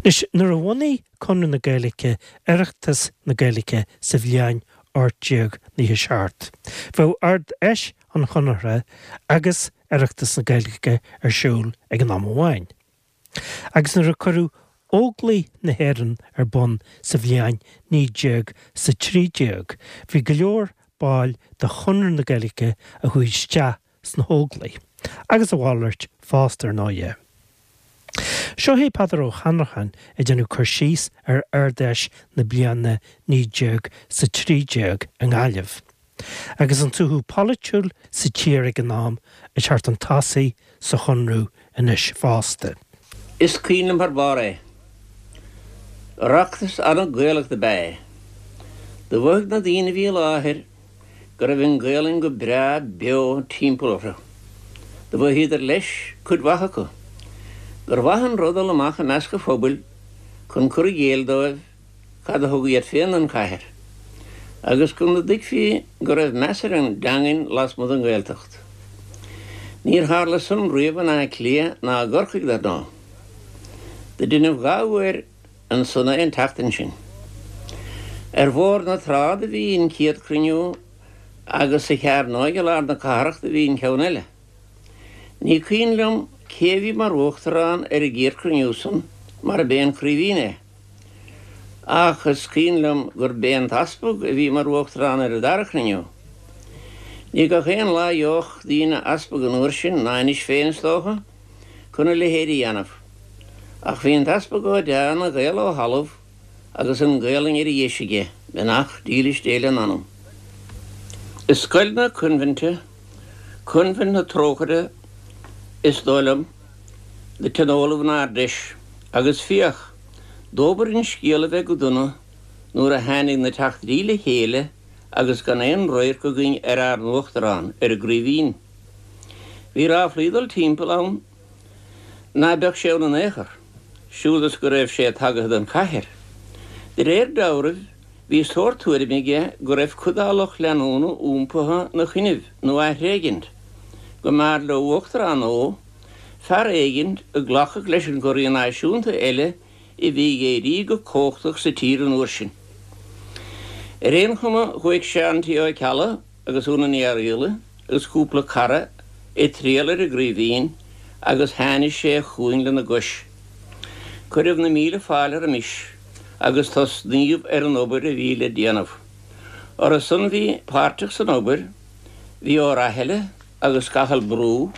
Anois, nuair a bhunaigh Conradh na Gaeilge Oireachtas na Gaeilge sa bhliain 1897, bheadh Ard-Fheis an Chonartha agus Oireachtas na Gaeilge ar siúl ag an am amháin. Agus nuair a cuireadh Óglaigh na hÉireann ar bun sa bhliain 1913, bhí go leor baill de Chonradh na Gaeilge a chuaigh isteach sna hÓglaigh, agus a mhalairt fosta, ar ndóighe. Seo é Peadar Ó hAnnracháin ag déanamh cur síos ar Ard-Fheis na bliana 1913 i nGaillimh, agus an suaitheadh polaitiúil sa tír ag an am ag teacht chun tosaigh sa Chonradh anois fosta. Is cuimhin liom thar barr é. Oireachtas an-Ghaelach dob ea é. Do mhothaigh na daoine a bhí i láthair go raibh an Ghaelainn go breá beo timpeall orthu. Do mhothaíodar leis, cuid mhaith acu, gur mhaith an rud dul amach i measc an phobail chun cur i gcéill dóibh cad a thug iad féin don chathair, agus go dtuigfí go raibh meas ar an dteangain lasmuigh den Ghaeltacht. Níor tharla san riamh in Áth Cliath ná i gCorcaigh, dar ndóigh. Do deineadh dha uair ansan é an tseachtain sin. Ar Bhóthar na Trá do bhí an chéad chruinniú agus sa Chearnóig i lár na cathrach do bhí an ceann eile. Ní cuimhin liom cé a bhí mar uachtarán ar an gcéad chruinniú san mar ab é an Craoibhín é. Ach is cuimhin liom gur b'é an t-easpag a bhí mar uachtarán ar an dara cruinniú. Ní gach aon lá a gheobhadh daoine easpag an uair sin, ná anois féin is dócha, chun a leithéid a dhéanamh. Ach bhí an t-easpag Ó Deá ina Ghael ó thalamh agus an Ghaelainn ar a dheis aige, beannacht dílis Dé lena anam. I scoil na coinbhinte, Coinbhint na Trócaire is dóigh liom, do tionóladh an Ard-Fheis, agus féach, dóbair an scéal a bheith go dona nuair a tháinig na teachtairí le chéile agus gan aon radharc againn ar ár n-uachtarán, ar an gCraoibhín. Bhí ráflaí ag dul timpeall ann ná beadh sé ann in aon chor, siúd is go raibh sé tagaithe don chathair. De réir dealraimh, bhí sórt tuairime aige go raibh cuid dá lucht leanúna iompaithe 'na choinnibh nó á thréigint, go mb'fhearr leo uachtarán nua, fear éigint a ghlacfadh leis an gcorraí náisiúnta eile a bhí ag éirí go cumhachtach sa tír an uair sin. Ar aon chuma, chuaigh Seán T. Ó Ceallaigh, agus Úna Ní Fhearghaíle agus cúpla cara ag triall ar an gCraoibhín agus tháinig sé chugainn lena gcois. Cuireadh na míle fáilte roimis agus tosnaíodh ar an obair a bhí le déanamh. Orthu san bhí páirteach san obair bhí Ó Rathaille agus Cathal Brú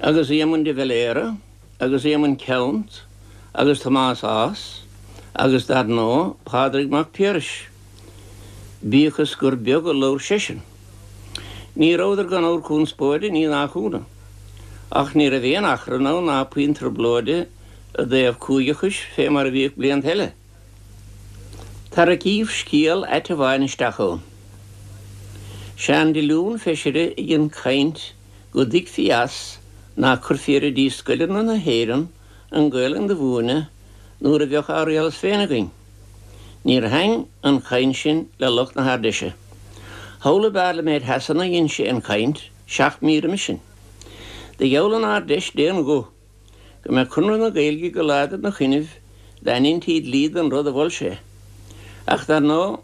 agus Éamonn de Valera agus Éamonn Ceannt agus Tomás Ághas agus dar ndóigh Pádraig Mac Piarais. Bíodh is gur beag a labhair seisean. Ní rabhadar gan ábhar conspóide, ní nach ionadh. Ach ní raibh aon achrann ann ná puinn trioblóide i dtaobh cúigeachais fé mar a bhíodh blianta eile. Tarraicíodh scéal ait amháin isteach ann. Seán Diolún, feisire, a dhein caint go dtuigfí as ná cuirfí ar oidí scoileanna na hÉireann an Ghaelainn do mhúineadh nuair a bheadh ár rialtas féin againn. Níor thaitn an chaint sin le lucht na hArd-Fheise. Thall i bPairlimint Shasana a dhein sé an chaint, 7 mí roimis sin. Do gheall an Ard-Fheis d'aon ghuth go mbeadh Conradh na Gaeilge go láidir 'na choinnibh dá ndeintí dlí den rud a mhol sé. Ach dar ndóigh,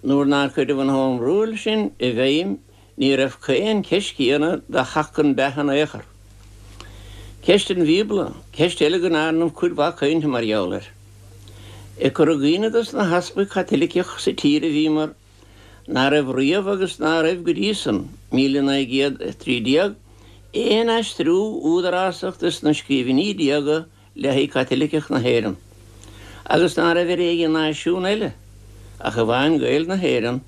nuair nár cuireadh an Home Rule sin i bhfeidhm Ní raibh aon cheist chéanna do theacht chun beatha in aon chor. Ceist an Bhíobla, ceist eile go ndearnadh cuid mhaith cainte mar gheall air. Ag cur i gcuimhne dos na heaspaig Chaitiliceach sa tír a bhíomar ná raibh riamh agus ná raibh go dtí san, 1913, aon aistriú údarásach dos na scríbhinní diaga le haghaidh Caitiliceach na hÉireann, agus ná raibh ar aon náisiún eile, ach amháin Gaeil na hÉireann,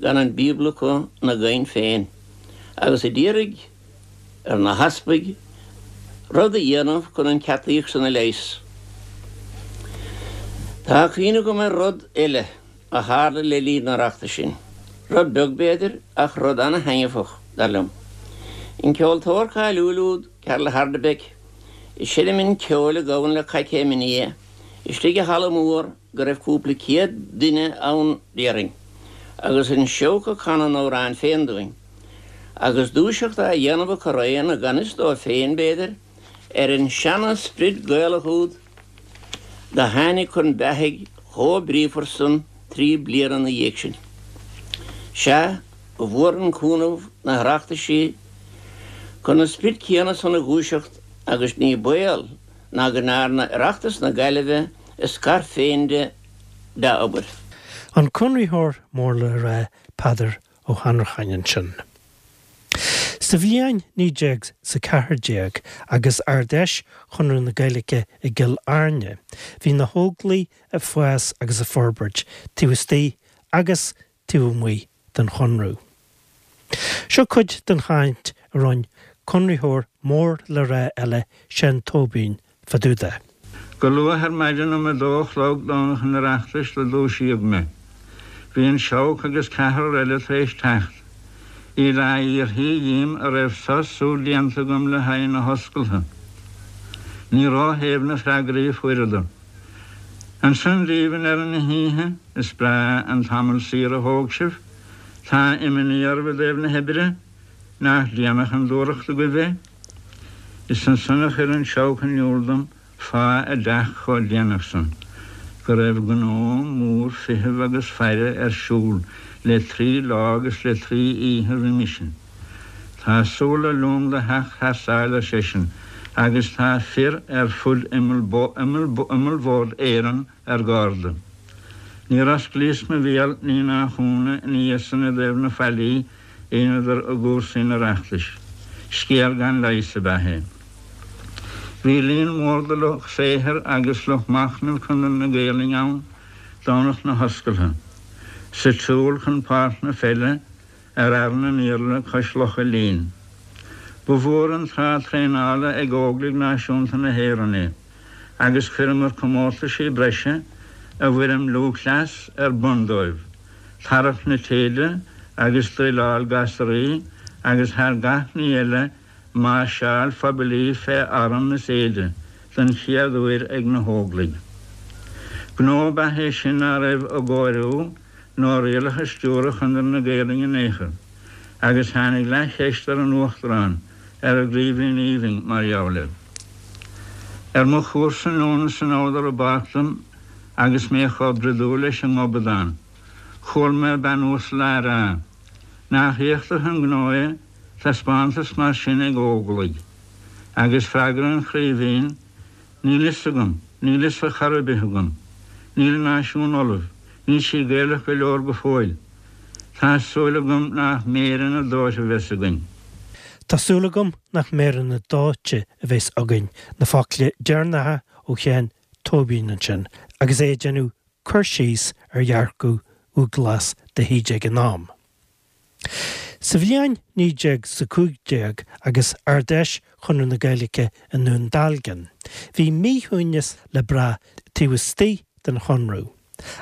gan an Bíobla acu 'na gcaint féin, agus a d'iarraidh ar na heaspaig rud a dhéanamh chun an cheataíocht san a leigheas. Tá cuimhne agam ar rud eile a tharla le linn an Oireachtais sin, rud beag b'fhéidir, ach rud ana-thaitneamhach, dar liom. An ceoltóir cáiliúil úd, Karel Hardebeck, ag seinm an cheoil a ghabhann le coicéim ina dhiaidh, istigh i halla mór go raibh cúpla céad duine ann déarfainn, agus an seabhac ag canadh an amhráin féin dúinn, agus dúiseacht á dhéanamh acu araon, i gan fhios dóibh féin, b'fhéidir, ar an seana-sprid Gaelach úd. Do tháinig chun beathaidh chomh bríofar san 3 bliana 'na dhiaidh sin. Sea, ba mhór an cúnamh na hOireachtaisí chun an sprid céanna san a dhúiseacht agus ní baol ná go ndearna Oireachtas na Gaillimhe a scair féin de dea-obair. An Conraitheoir mór le rá Peadar Ó hAnnracháin ansin. Sa bhliain 1914 agus Ard-Fheis Chonradh na Gaeilge i gCill Airne, bhí na hÓglaigh ag fás agus ag forbairt taobh istigh agus taobh amuigh den Chonradh. Seo cuid den chaint a rinne Conraitheoir mór le rá eile, Seán Tóibín, fá dtaobh de. Go luath ar maidin um a dó a chlog Domhnach an Oireachtais do dúisíodh mé. Bhí an Seabhac agus ceathrar eile tar éis teacht. Iad á fhiafraí dhíom a raibh sos súl déanta agam le haghaidh na hoscaltha. Ní ró-shéimh na freagraí a fuaireadar. Ansan daoibh i ndeireadh na hoíche, is breá an tamall saor a thóg sibh. Tá imní oraibh i dtaobh na hoibre? Nach déanach an dúthracht agaibh é? Is ansan a chuir an Seabhac in iúl dom fáth a dteacht chomh déanach san, go raibh gnó mór feithimh agus faire ar siúl le trí lá agus le trí oíche roimis sin. Tá súil le long do theacht thar sáile, ar seisean, agus tá fir ar fud imeallbhord Éireann ar gárda. Níor osclaíos mo bhéal ní nach ionadh ina dhiaidh san i dtaobh na faillí a dheineadar i gcúrsaí an Oireachtais. Scéal gan leigheas ab ea é. Bhí líon mór de lucht saothair agus lucht machnaimh Chonradh na Gaelainne ann Domhnach na hoscaltha, sa tsiúl chun páirc na peile ar Fhearann an Iarla cois Locha Lín. Ba mhór an tráth traenála ag Óglaigh Náisiúnta na hÉireann é agus chuireamar comórtaisí breise i bhfoirm lúthchleas ar bun dóibh. tarrac na téide agus druileáil gasraí agus thar gach ní eile máirseáil phoiblí fé arm is éide don chéad uair ag na hÓglaigh. Gnó ab ea é sin ná raibh i gcóiriú nó rialacha stiúrtha Chonradh na Gaelainne in aon chor agus tháinig leathcheist ar an Uachtarán ar an gCraoibhín Aoibhinn mar gheall air. Ar mo chúrsa anonn is anall ar an bpáirc dom agus mé chomh broidiúil leis an ngobadán. Chuala mé bean uasal á rá, Nach éachtach an gnó é, taispeántas mar sin ag Óglaigh. Agus freagra an Chraoibhín, Níl fhios agam, níl fhios ar chor ar bith agam. Níl an náisiún ullamh, níl sí Gaelach go leor go fóill. Tá súil agam nach méireanna dóite a bheas againn. Tá súil agam nach méireanna dóite a bheas againn, na focla deireanacha ó Sheán Tóibín ansin agus é ag déanamh cur síos ar dhearcadh Dhubhghlas de hÍde ag an am. Sa bhliain 1915 agus Ard-Fheis Chonradh na Gaeilge i nDún Dealgan, bhí míshuaimhneas le brath taobh istigh den Chonradh,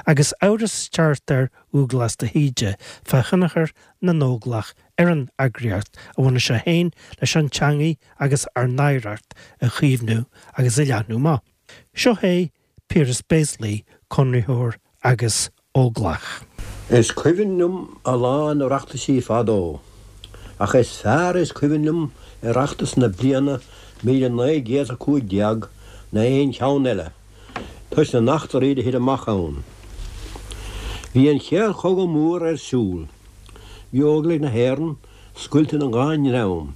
agus amhras ag teacht ar Dhubhghlas de hÍde fá thionchar na nÓglach ar an eagraíocht a bhunaigh sé féin leis an teangaidh agus ár n-oidhreacht a chaomhnú agus a leathnú amach. Seo é Piaras Béaslaí, Conraitheoir agus Óglach. Is cuimhin liom a lán Oireachtaisí fadó, ach is fearr is cuimhin liom Oireachtas na bliana 1915 ná aon cheann eile, toisc na n-eachtraí do thit amach ann. Bhí an Chéad Chogadh Mór ar siúl. Bhí Óglaigh na hÉireann scoilte ina dhá ndream,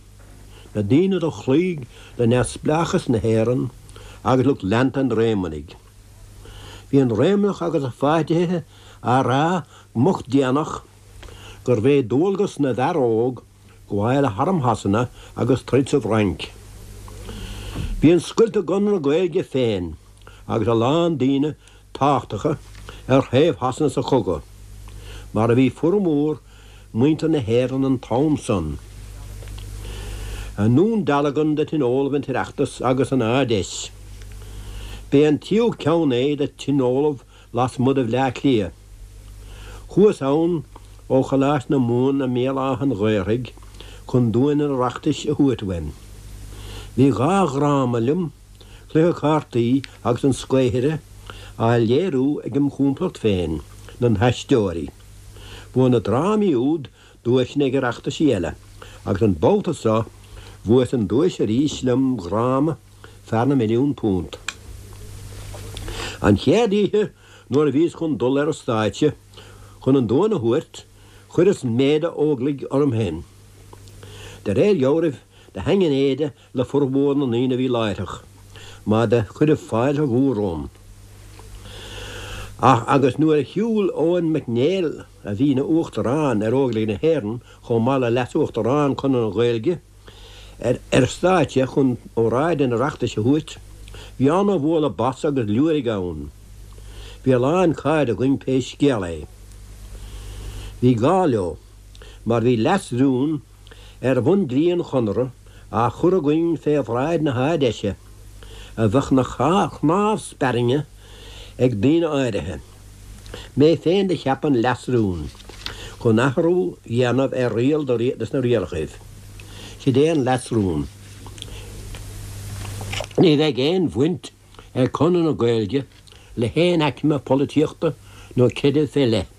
na daoine do chloígh le neamhspleáchas na hÉireann agus lucht leanta an Réamonnaigh. Bhí an Réamonnach agus a pháirtithe á rá go moch déanach gurbh é dualgas na bhfear óg gabháil le harm Shasana agus troid sa bhFrainc. Bhí an scoilt i gConradh na Gaeilge féin agus a lán daoine tábhachtacha ar thaobh Shasana sa chogadh, mar a bhí formhór muintir na hÉireann an t-am san. I nDún Dealgan do tionóladh an tOireachtas agus an Ard-Fheis. B'é an tríú ceann é do tionóladh lasmuigh de Bhleá Cliath. Chuas ann ó Choláiste na Mumhan i mBéal Átha an Ghaorthaidh chun duais an Oireachtais a thabhairt uaim. Bhí dhá dhráma liom, Cluiche Cártaí agus An Scaothaire, á léiriú ag im chomplacht féin, na hAisteoirí. Bhuaigh na drámaí úd duaiseanna ag Oireachtaisí eile agus an babhta so bhuas an duais arís lem dhráma Fear na Milliún Punt. An chéad oíche nuair a bhíos chun dul ar an stáitse chun an duan a thabhairt, chuireas m'éide Óglaigh orm féin. De réir dhealraimh, do thaitn an éide le formhór na ndaoine a bhí láithreach, mar do cuireadh fáilte mhór romham. Ach agus nuair a shiúil Eoin Mac Néill, a bhí ina Uachtarán ar Óglaigh na hÉireann chomh maith le Leas-Uachtarán Chonradh na Gaeilge, ar an stáitse chun óráid an Oireachtais a thabhairt, bhí ana-bhualadh bos agus liúirigh ann. Bhí a lán cairde againn pé scéal é. Bhí gá leo, mar bhí leas-rún ar bhun-dlí an Chonartha á chur againn fé bhráid na hArd-Fheise, a bheadh 'na chnámh spairne ag daoine áirithe. Mé féin do cheap an leas-rún chun athrú dhéanamh ar riail de sna rialachaibh. Sid é an leas-rún. Ní bheidh aon bhaint ag Conradh na Gaeilge le haon aicme polaitíochta nó creidimh fé leith,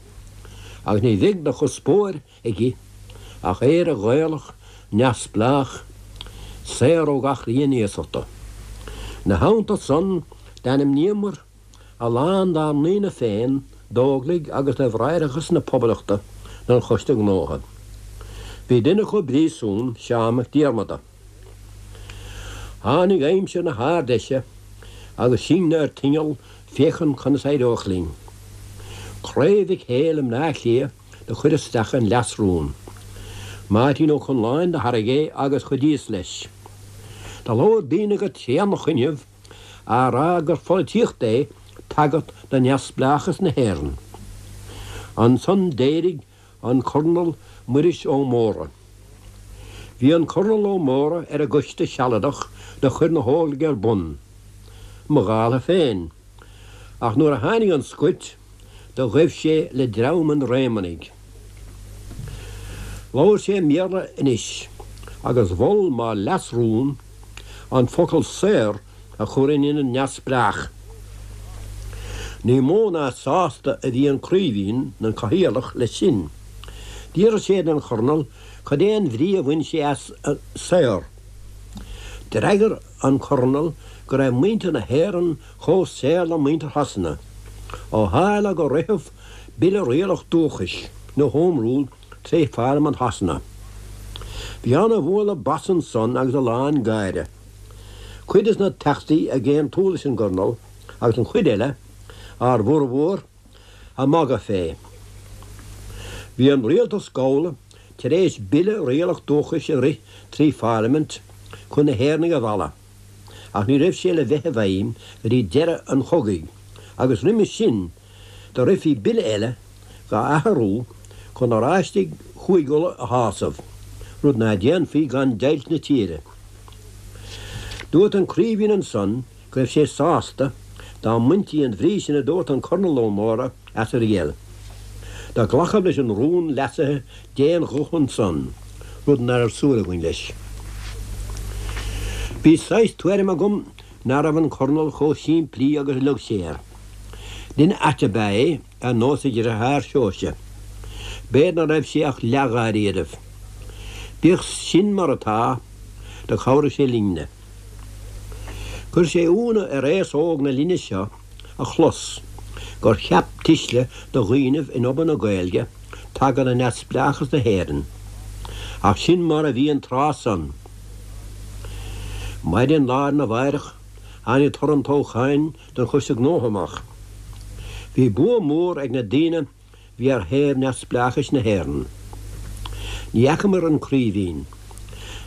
agus ní bheidh de chuspóir aige ach Éire Ghaelach neamhspleách, saor ó gach rian iasachta. 'Na theannta san, d'ainmníomar a lán dár ndaoine féin d'Óglaigh agus do Bhráithreachas na Poblachta don Choiste Gnótha. Bhí duine acu i bpríosún, Seán Mac Diarmada. Tháinig aimsir na hArd-Fheise agus sinne ar tinneall féachaint conas éireodh linn. Craobh Mhic Héil i mBleá Cliath do chuir isteach an leas-rún. Máirtín Ó Conláin do thairg é agus chuidíos leis. Do labhair daoine go tréanach inniu á rá gur pholaitíocht é tagairt do neamhspleáchas na hÉireann. Ansan d'éirigh an Cornal Muiris Ó Mórdha. Bhí an Cornal Ó Mórdha ar an gcoiste sealadach do chuir na hÓglaigh ar bun, mo dhála féin, ach nuair a tháinig an scoilt do ghaibh sé le dream an Réamonnaigh. Labhair sé i mBéarla anois agus mhol mo leas-rún an focal saor a chur in ionad neamhspleách. Ní mó ná sásta a bhí an Craoibhín, an Cathaoirleach, leis sin. D'fhiafraigh sé den Chornal cad é an bhrí a bhain sé as saor. D'fhreagair an Cornal go raibh muintir na hÉireann chomh saor le muintir Shasana, ó tharla gur ritheadh Bille Rialach Dúchais, nó Home Rule, tré Pharlaimint Shasana. Bhí ana-bhualadh bas ansan agus a lán gáire. Cuid des na Teachtaí ag aontú leis an gCornal agus an chuid eile, ár bhformhór, ag magadh fé. Bhí an Rialtas Gabhála tar éis Bille Rialach Dúchais a rith trí Pharlaimint chun na hÉireannaigh a mhealladh, ach ní raibh sé le bheith i bhfeidhm go dtí deireadh an chogaidh, agus roimis sin do rithfí bille eile dhá athrú chun Oráistigh Chúig Uladh a shásamh, rud ná déanfaí gan deighilt na tíre. Dúirt an Craoibhín ansan go raibh sé sásta dá mbaintí an bhrí sin a dúirt an Cornal Ó Mórdha as an riail. Do glacadh leis an rún leasaithe d'aon ghuth ansan, rud ná raibh súil againn leis. Bhí saghas tuairim agam ná raibh an Cornal chomh simplí agus a leag sé air. Duine ait ab ea é, ar nós a dhriotháir Seoirse. B'fhéidir ná raibh sé ach leath-dháiríribh. Bíodh sin mar atá, do chabhraigh sé linne. Chuir sé iúnadh ar aos óg na linne seo a chlos gur cheap tuisle de dhaoinibh in obair na Gaeilge tagairt do neamhspleáchas na hÉireann. Ach sin mar a bhí an tráth san. Maidin lá arna mháireach tháinig toradh an toghcháin don Choiste Gnótha amach. Bhí bua mór ag na daoine bhí ar thaobh neamhspleáchais na hÉireann. Ní fheacamair an Craoibhín.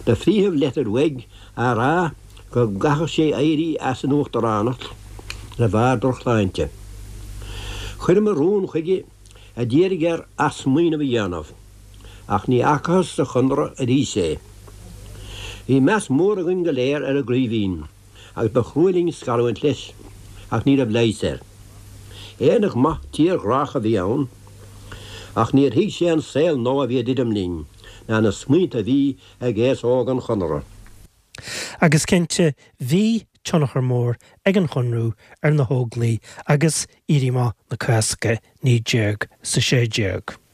Do frítheadh leitir uaidh á rá go gcaithfeadh sé éirí as an uachtaránacht de bharr drochshláinte. Chuireamair rún chuige a d'iarraidh air athsmaoineamh a dhéanamh, ach ní fhacathas sa Chonradh arís é. Bhí meas mór againn go léir ar an gCraoibhín agus ba chrua linn scarúint leis, ach ní raibh leigheas air. Éireannach maith tírghrách a bhí ann, ach níor thuig sé an saol nua a bhí ag druidim linn, ná na smaointe a bhí ag aos óg an Chonartha. Agus cinnte, bhí tionchar mór ag an Chonradh ar na hÓglaigh agus Éirí Amach na Cásca 1916.